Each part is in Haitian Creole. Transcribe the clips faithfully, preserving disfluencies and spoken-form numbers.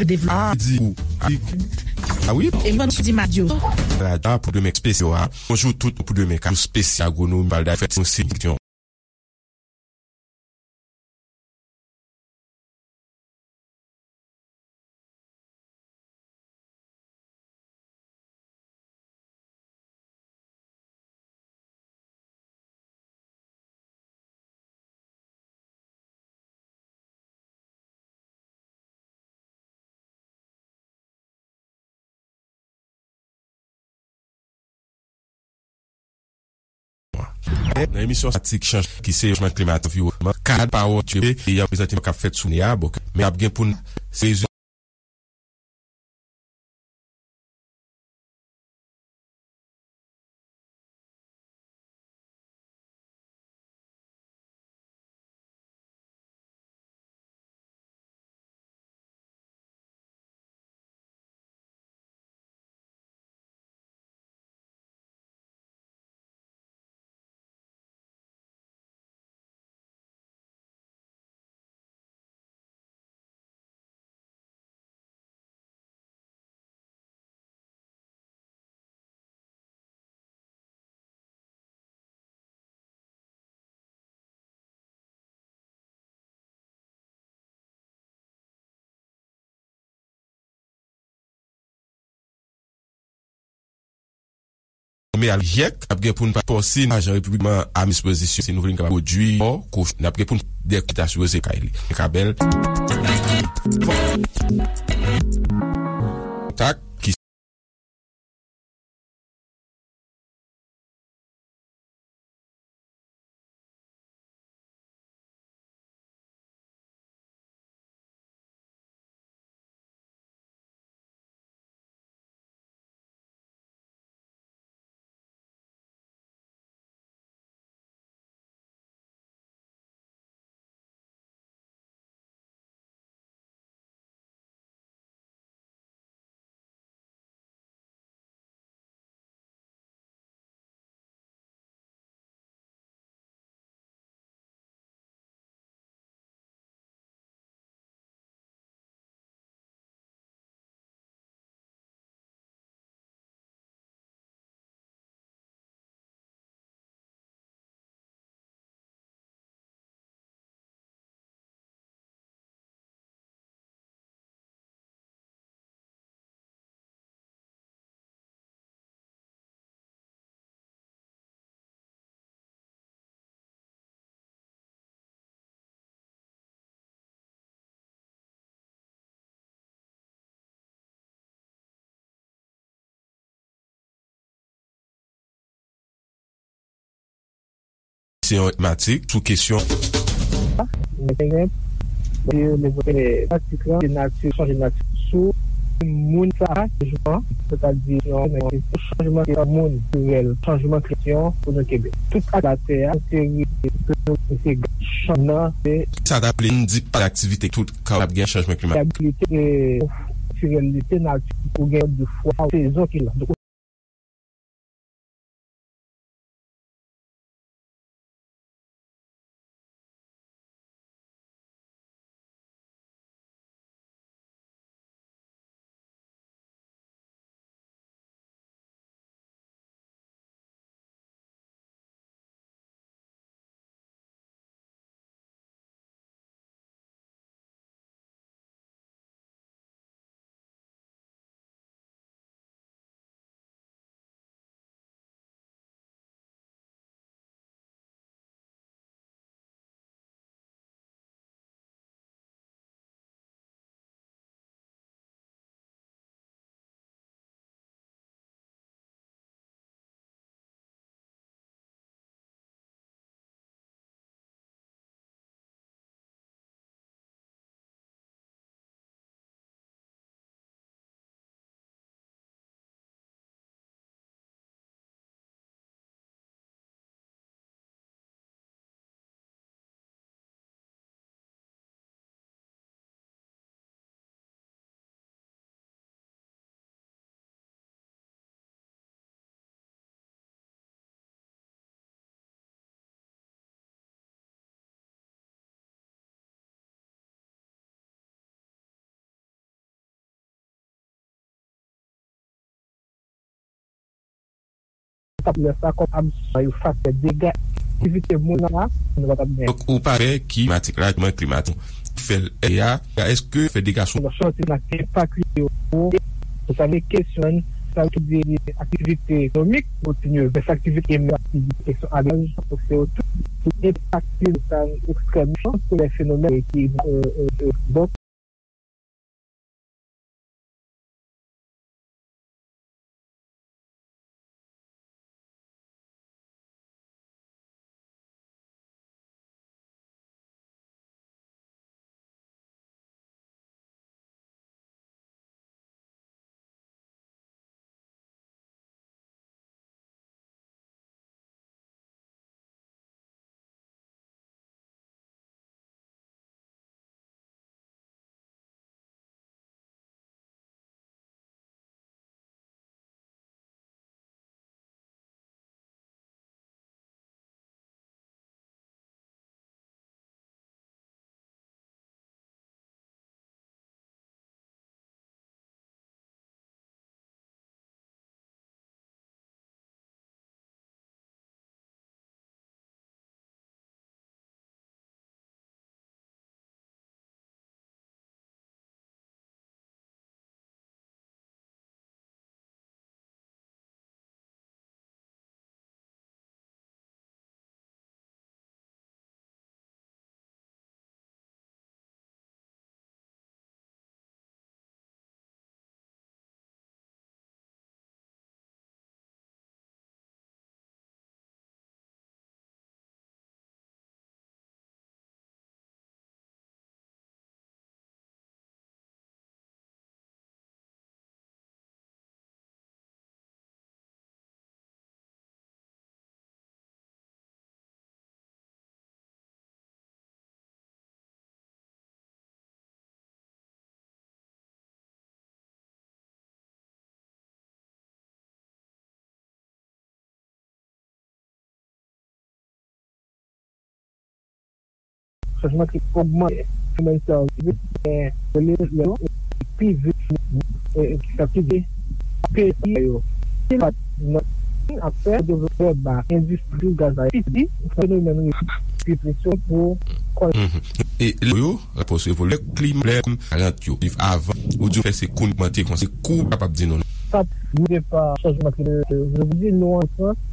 Devlopman. A di ou. A wi. E mwen sou di Madyo. Radyo pou demen espesyal a. Bonjou tout pou demen ka espesyal agronomi bal da fèt yon seleksyon. Nan emisyon sa, ti chanj ki se chanjman klimatik, anviwònman, kad pawòl e y ap prezante k ap fèt sou ne a, bon, men ap gen pou n se Mè al jèk ap gen pou n pa pòsi ajan repiblikman a dispozisyon si nou vle n kapab pwodui kò koch n ap gen pou n dèk ta sipoze kay li kabèl kontak ki Se yon matik sou kesyon. Matik la, se nati, chanje nati sou moun sa, chanjman, sètadi, chanjman, se yon moun, chanjman, kesyon, pou nou kenbe. Tout ak latè a, se, se, se chanjman, se sa ta vle di pa aktivite tout ka ap gen chanjman klimatik. Stabilite, e, natiralite nati pou gen de fwa sezon ki la. Sa pou lè sa kòm absòbsyon yo faktè dega aktivite moun la, nou pa t ap gen. Donk, ou pa pè ki klimatik la, mwen klimatik, fè l a, èske fè dega sou. Chante nan enpak yo, pou sa vle kesyon, sa yo tou di aktivite ekonomik, kontinye, men sa aktivite, men aktivite kesyon alaj, se yo tout, ki enpakte sa ekstrèmman, se lè fenomèn ki, euh, euh, euh, donk, Chanjman klimik ogmante fenomèn sa yo pi vit, men rele yo pi vit, e, ki sa ki di peyi yo. Ki pa nan ap fè devlopman ba endistri gaz la piti, fenomèn pi presyon pou kòl. Mhm. E lè yo, rapò sou evolye klima, lè kòm parant yo viv avan, ou di fè se kou n ogmante konsa, kou pa p ap di non. Sa, nou pa chanjman klimatik, je vous dis, nou an Frans,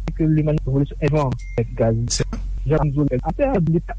se ke limanite evolisyon evan gaz. Jan nou di atè, li pa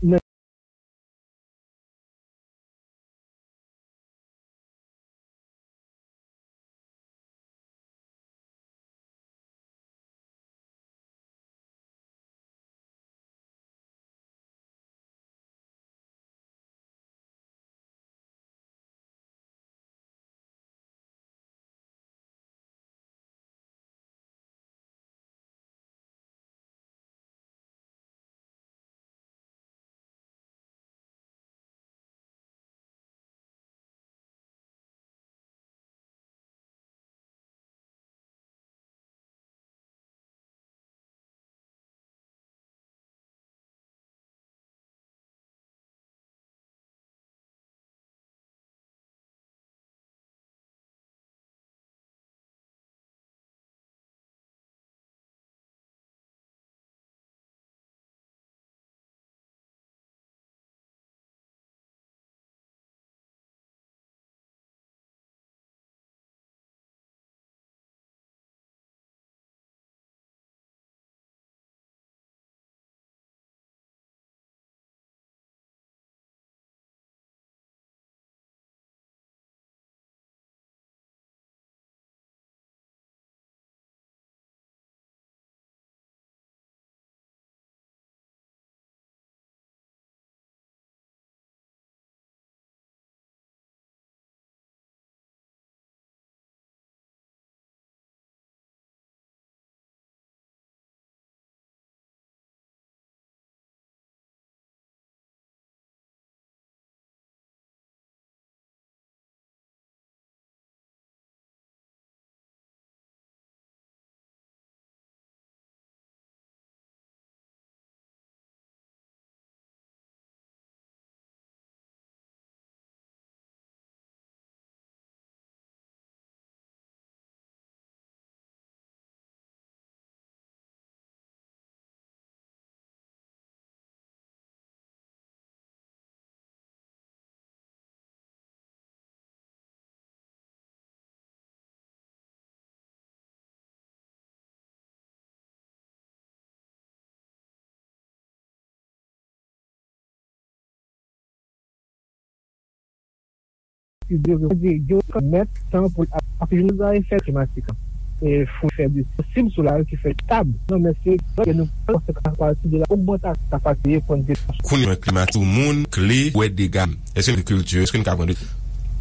ki dwe rekonèt tan pou l ap, ap jwenn a efè klimatik. E fò fè de posib sou la ki fè tab. Non, men se ke nou panse a pati de la ogmantasyon kapasite pran de Kounye a, klimatik, moun kle, wè dega. Èske n kilti, èske n ka pran de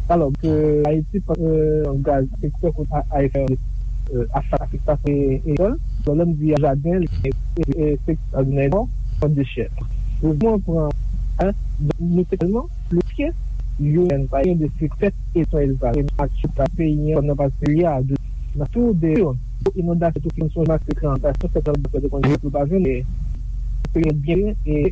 Alò, ke Ayiti pa, euh, gaz, sektè kot a, a efè, euh, a sa, afektasyon e, e, e, lè m di jaden, e, e, e, sektè agrikòl, pran de chè. Pou mwen pran, hein, nou te tèlman, le pye, yo, pa gen de sektè e son elvaj. E match ta peyi, nan pase peyi a, de, nan tou de, inondasyon, tou ki son match, se inondasyon, se tan de konn pou pa vin, e, peyi byen, e,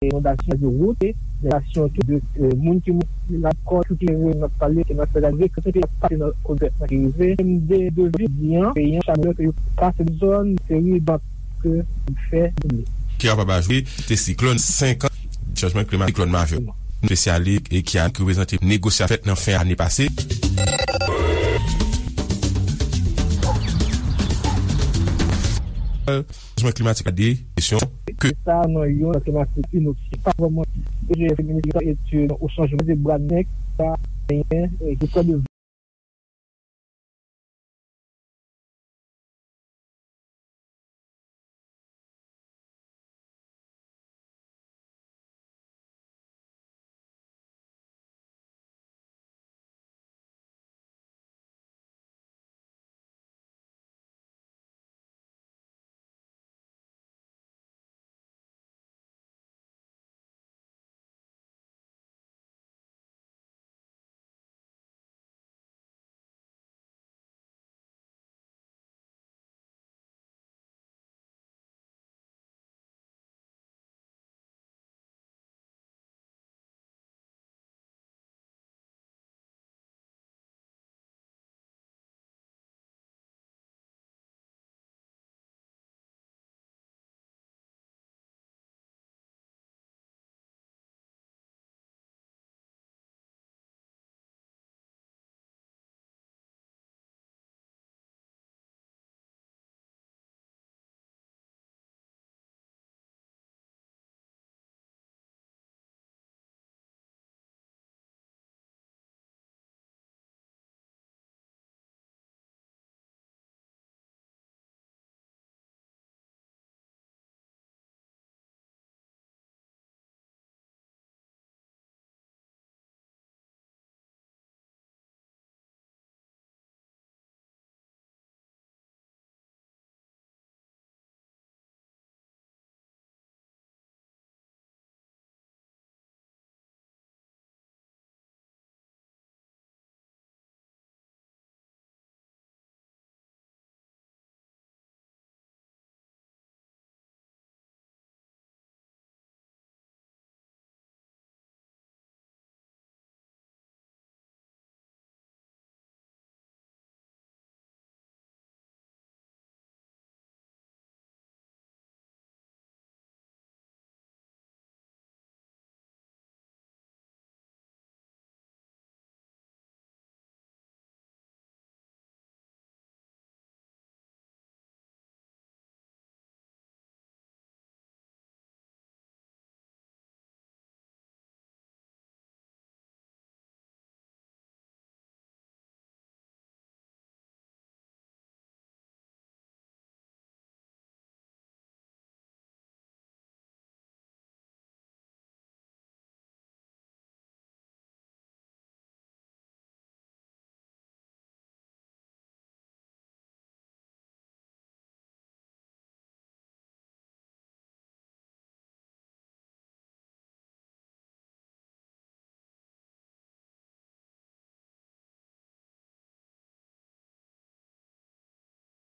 Inondasyon de wout, inondasyon tou de, euh, moun ki mouri lakòl, tout ki nan pale, ki nan fè la, ki te pase nan kozèt nan ki rive, M D de vi di an, peyi an, chanm yo ke yo pase zòn, seri bank ke fè. Ki kapab ajoute, te siklòn senk an, chanjman klimatik, siklòn Mavyo. Espesyalis e ki a, ki reprezante negosyasyon fèt nan fen ane pase. Chanjman klimatik la de kesyon ke sa nan yon klimatik inoksi pa vrèman e je feminis etid ou chanjman de bra nèg pa genyen e ki pran de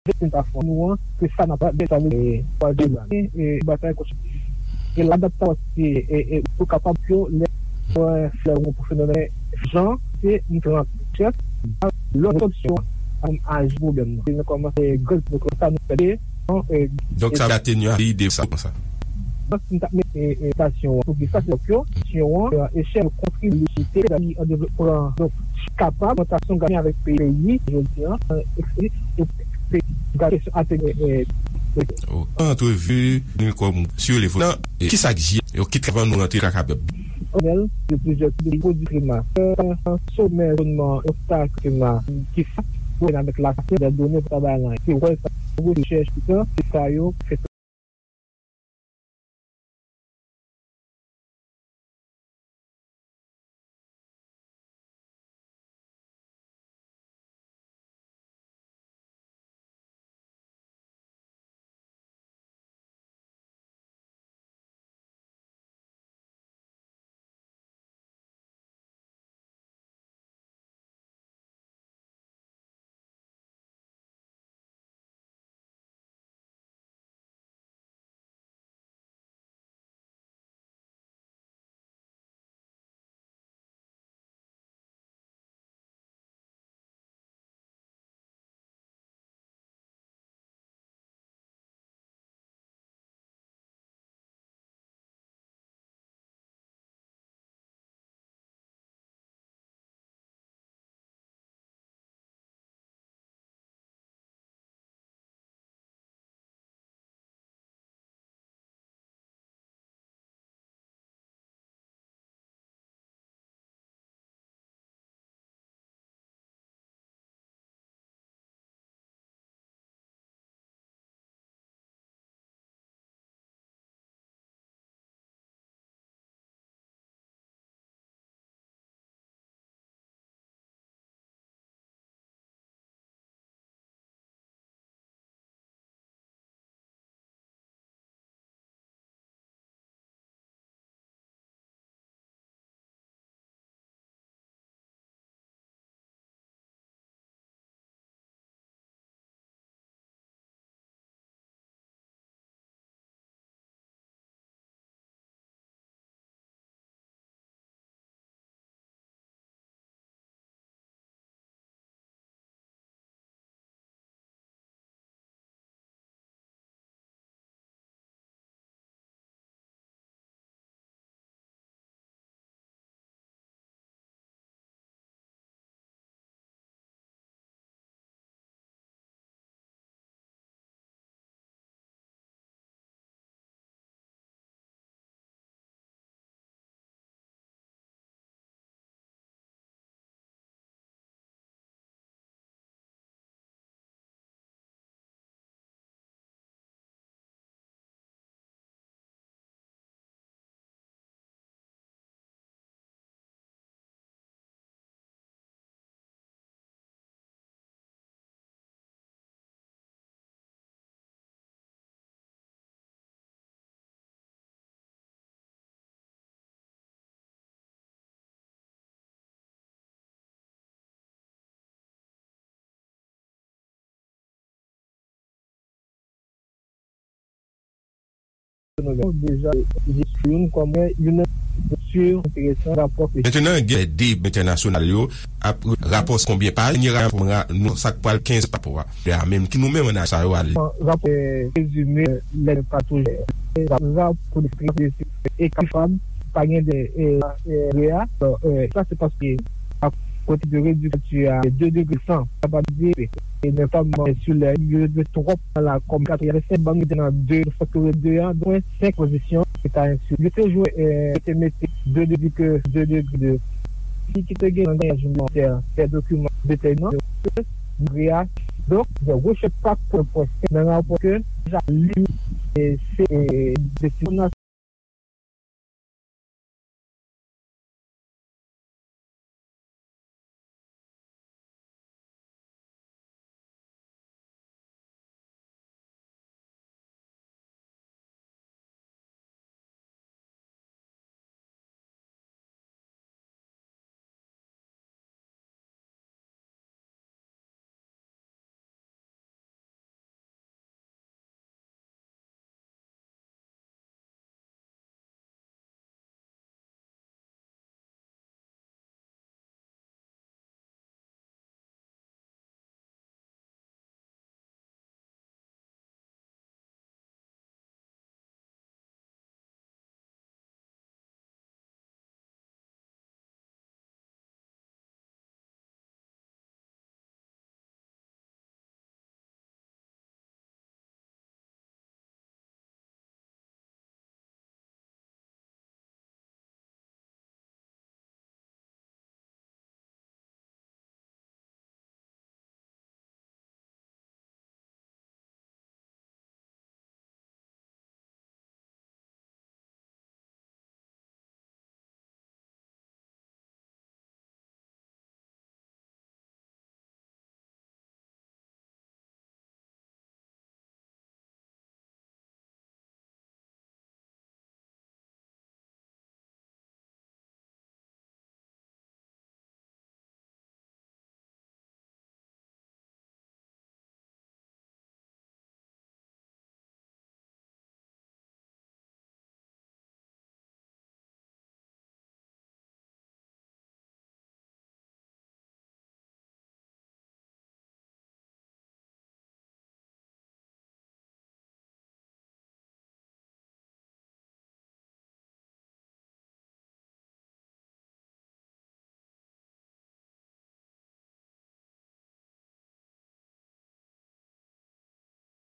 Vèt nou ta fè nou an, se sa n ap fè, sa vle di, twazyèm ane, e, batay konstitisyonèl. E ladaptasyon, e, e, e, pou kapab yo, lè, flè, pou fenomèn, jan, se yon trant chèf, lòt opsyon, pou aji pwoblèm nan. Nou kòmanse, grenn, nou kòmanse, nou fè, e, donk, sa va atenye ide sa, konsa. Donk, nou ta mete, e, stasyon an, pou ki sa, se yo, stasyon an, e, echèl kontribisyon, an devlopman, donk, kapab, augmentation gain avec pays, jodi an, euh, et puis, et puis, gade sou atelier, euh, Oh, antrevi nou kòm sou le volan, e ki sa k jye yo kit avan nou rantre lakay pèp? Panèl de plusieurs de produits primaires, euh, sommet, environnement, obstacle primaire, ki sa, pou avèk la science, des données, pou travay lan, ki wè sa, rechèch, tout sa, se sa yo, fè Deja, jis youn kòm youn nan estrikti enteresan rapò ke Mentenan, gen de entènasyonal yo ap rapò konbyen paj, ni rapò nou sa k pral kenz rapò a. De a menm ki nou menm nan sa yo ale. Rapò, eh, rezime, eh, lè pa toujou. Rapò de ekri fab, pa gen de, eh, eh, re a. Sa se paske a kote de rediksyon a de degre san, sa pa di, e men pa mwen sou lè yo de twòp la kòm katrevensenk bann ki te nan de, fòk yo de an, dwen senk pozisyon, se ta ensi. Yo te jwe, eh, yo te mete de degre, de degre de. Si ki te gen nan yon mantè, fè dokiman detèminan, yo te mare a. Donk, de rechèk pa pou pwès nan rapò ke deja li, eh, se, eh, de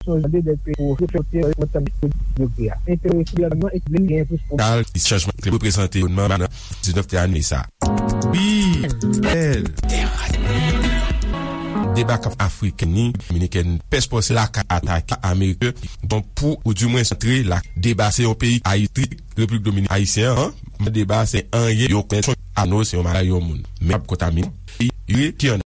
Nasyon Zini de peyi pou reflekte nan rekonèsans yo kreye a. Enterese gouvènman e vin gen plis pou Kal, chanjman klima reprezante yon nan diznèf te ane sa. Wi, bèl. Deba k ap Afrik ni Dominikèn pèspòs lakay atake Ameriken, bon, pou, ou di mwen, antre la, deba se yon peyi Ayiti, Repiblik Dominikèn, Ayisyen an, deba se anyen yo konèt, ano se yon maladi yon moun. Men ap kontamine, yo ki an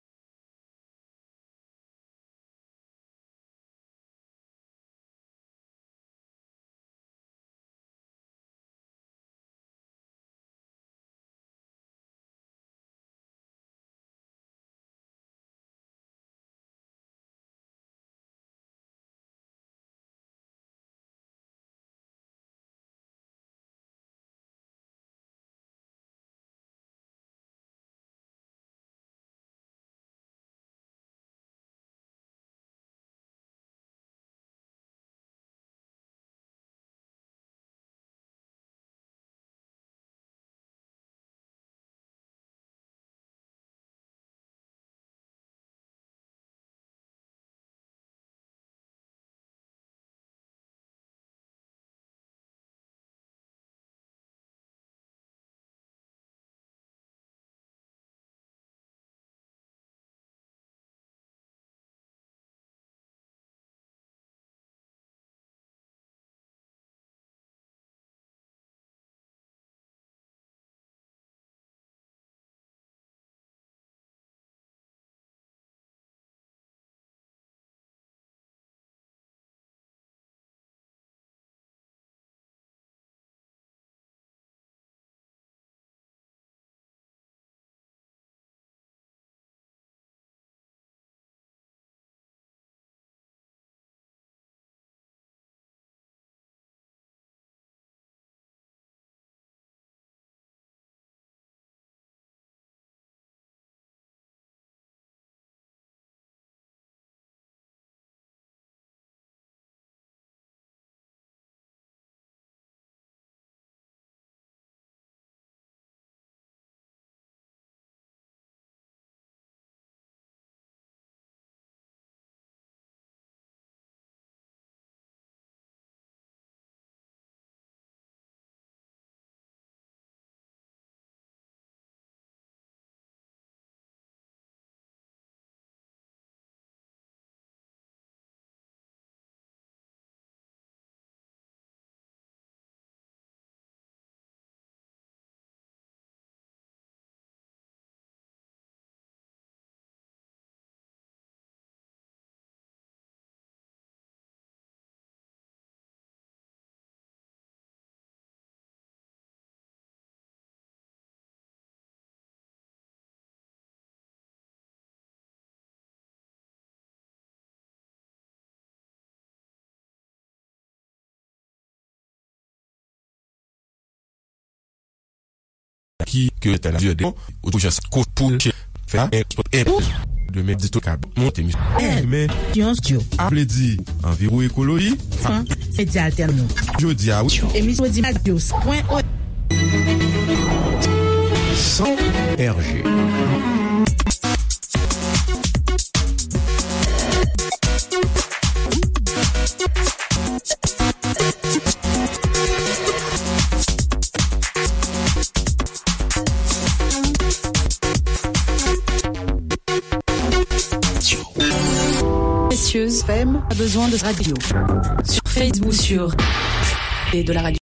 Ki ke tèl a di de ou jan sa ko pou che fè a en spot en demen di tou kab monte mi. Demen yon styo a vle di anviwon ekoloji. Fan se di altèn nou. Jodi a wi. Emisyon di radio pwen o. Son R G. Précieuse F M a besoin de radio. Sur Facebook, sur et de la radio.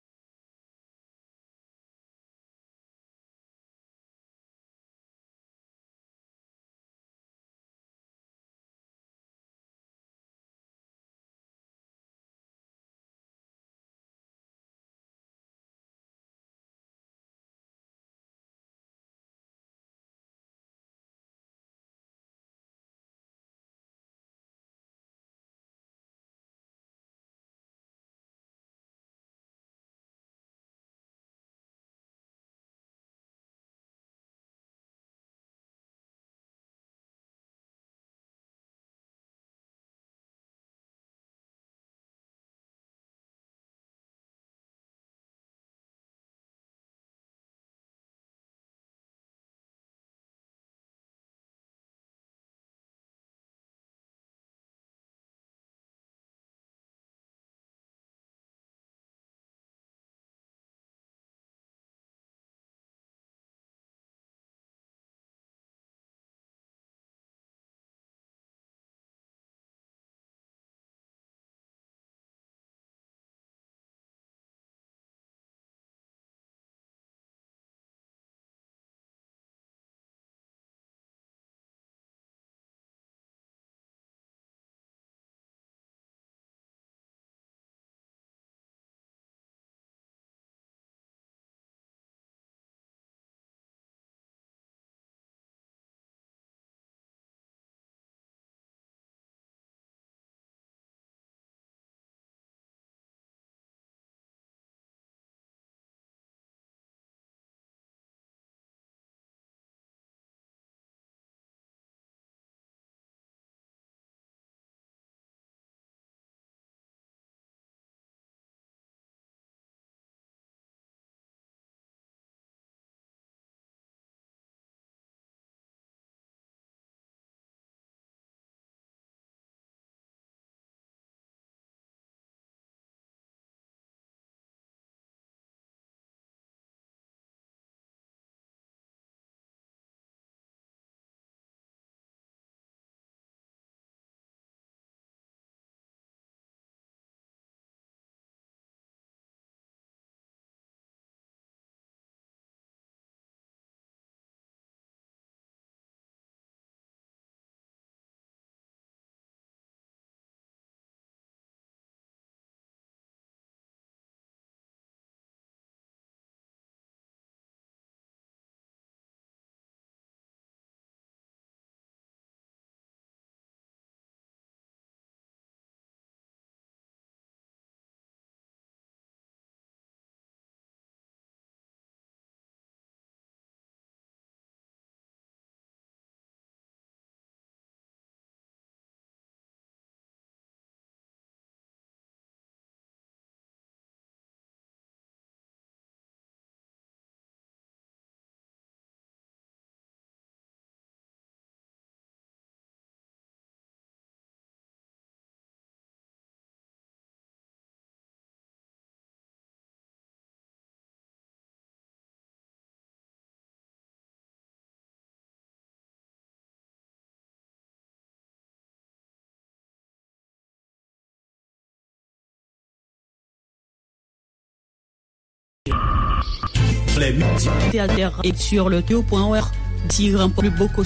Alter et sur le théo point org, tirant plus beau que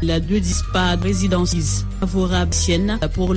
la deux dispar résidence favorable sienne pour